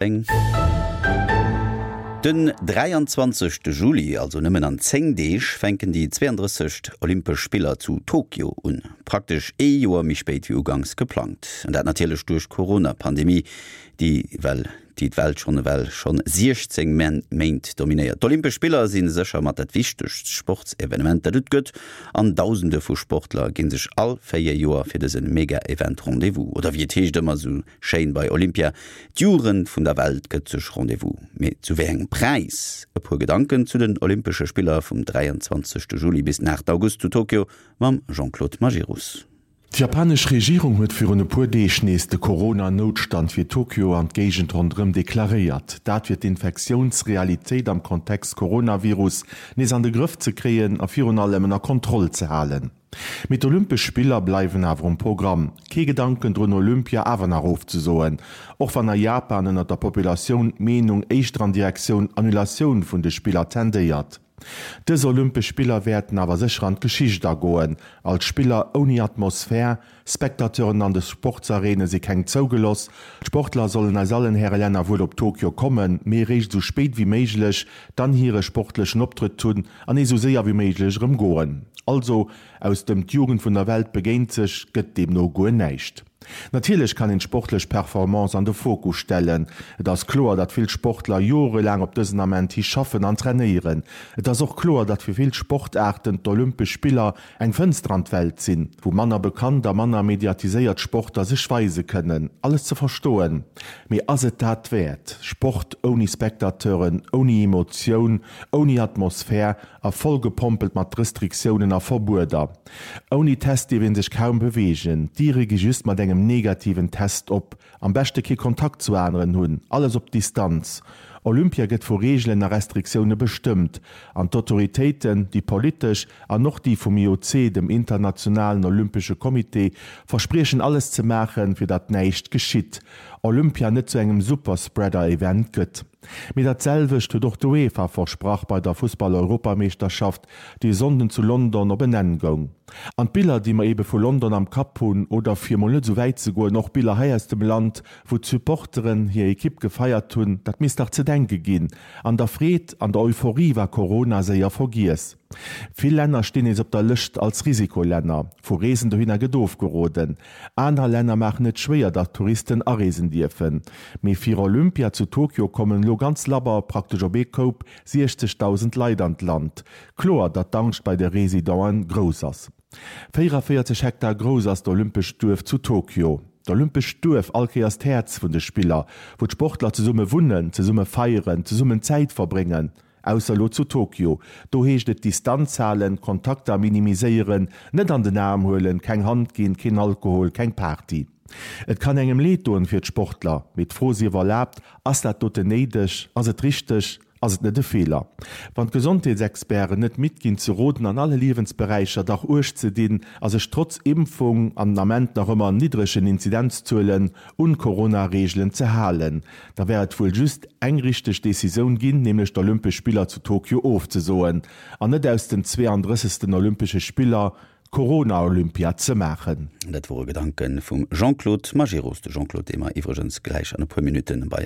Eng. Den 23. Juli, also nëmmen an 10 Deeg, fänken déi 32. Olympesch Spiller zu Tokio un. Praktesch ee Joer méi spéit wéi uganks geplangt. An dat natierlech duerch d'Corona-Pandemie, déi well déi d'Welt schonn ewell schonn 16 Méint dominéiert. D'Olympesch Spiller si sécher mat dat wichtegst Sportsevenement, dat et gëtt, an Dausende vu Sportler gi sech all 4 Joer fir dëse Mega-Event Rendez-vous. Oder wéi et heescht ëmmer esou Schéin bei Olympia, d'Jugend vun der Welt gëtt sech Rendez-vous. Mee zu wéi engem Präis? E puer Gedanken zu den Olympesche Spiller vum 23 Juli bis den 8 August zu Tokio mam Jean-Claude Majerus. D'japanesch Regierung huet virun e puer Deeg nees de Corona-Noutstand fir Tokio an d'Géigend ronderëm deklaréiert. Dat fir d'Infektiounsrealitéit am Kontext Coronavirus nees an de Grëff ze kréien a virun allem ënner Kontroll ze halen. Mee d'Olympesch Spiller bleiwen awer um Programm. Kee Gedanken drun Olympia awer nach ofzesoen, och wann a Japan ënnert der Populatioun d'Meenung éischter an Direktioun Annulatioun vun de Spiller tendéiert. Dës Olympesch Spiller wäerten awer sécher an d'Geschicht agoen als Spiller ouni Atmosphär, Spectateuren an de Sportsareene si keng zougeloss. D'Sportler sollen aus allen Häre Länner wuel op Tokio kommen, mee eréischt esou spéit wéi méiglech, dann hire sportlechen Optrëtt hunn an nees esou séier wéi méiglech erëm goen. Also, aus dem d'Jugend vun der Welt begéint sech gëtt deemno guer näischt. Natierlech kann een d'sportlech Performance an de Fokus stellen. Et ass kloer, datt vill Sportler jorelaang op dësen Ament hi schaffen an trainéieren. Et ass och kloer, datt fir vill Sportaarten d'Olympesch Spiller Eng Fënster an d'Welt sinn, wou manner bekannt a manner mediatiséiert Sportler sech weise kënnen. Alles ze verstoen, mee ass et dat wäert? Sport ouni Spectateuren, ouni Emotioun, ouni Atmosphär a vollgepompelt mat Restriktiounen a Verbueder. Ouni Test dierf ee sech kaum beweegen, d'Diere gi just mat engem negativen Test op. Am beschte kee Kontakt zu aneren hunn, alles op Distanz. Olympia gëtt vu Reegelen a Restriktioune bestëmmt, an d'Autoritéiten, déi politesch an och déi vum IOC, dem Internationalen Olympesche Comité, verspriechen alles ze maachen, fir datt näischt geschitt, Olympia net zu engem Superspreader-Event gëtt. Mee dat selwecht huet och d'UEFA versprach bei der Fussball-Europameeschterschaft, déi e Sonnden zu London op en Enn goung. An d'Biller, déi mer ebe vu London am Kapp hunn, oder fir emol net esou wäit ze goen, och Biller hei aus dem Land, wou d'Supporteren hir Ekipp gefeiert hunn, dat misst dach ze denke ginn. An der Freed, an der Euphorie war Corona séier vergiess. Vill Länner stinn nees op der Lëscht als Risikolänner. Vu Reesen dohinner gëtt ofgeroden. Aner Länner maachen et schwéier, datt Touristen areesen dierfen. Mee fir Olympia zu Tokio kommen elo ganz labber, praktesch op ee Koup, 60.000 Leit an d'Land. Kloer, datt d'Angscht bei de Residenten grouss ass. 44 Hektar grouss ass d'Olympescht Duerf zu Tokio. D'Olympescht Duerf, all Kéiers d'Häerz vun de Spiller, wou d'Sportler zesumme wunnen, zesumme feieren, zesummen Zäit verbréngen. Ausser elo zu Tokio. Do heescht et Distanz halen, Kontakter minimiséieren, net an den Aarm huelen, keng Hand ginn, keen Alkohol, keng Party. Et kann engem leed doen fir d'Sportler, mee d'Fro sief erlaabt, Ass dat doten néideg? Ass et richteg? Ass et net e Feeler, wann d'Gesondheetsexperten net midd ginn ze roden, an alle Liewensberäicher dach Uecht ze dinn a sech trotz Impfung an den Ament nach ëmmer niddregen Inzidenzzuelen un d'Corona-Reegelen ze halen? Da wär et wuel just eng richteg Decisioun ginn, nämlech d'Olympesch Spiller zu Tokio ofzesoen an net aus den 32. Olympesche Spiller d'Corona-Olympia ze maachen. Dat wore Gedanke vum Jean-Claude Majerus. De Jean-Claude, dee mer iwwregens gläich an e puer Minutte bei.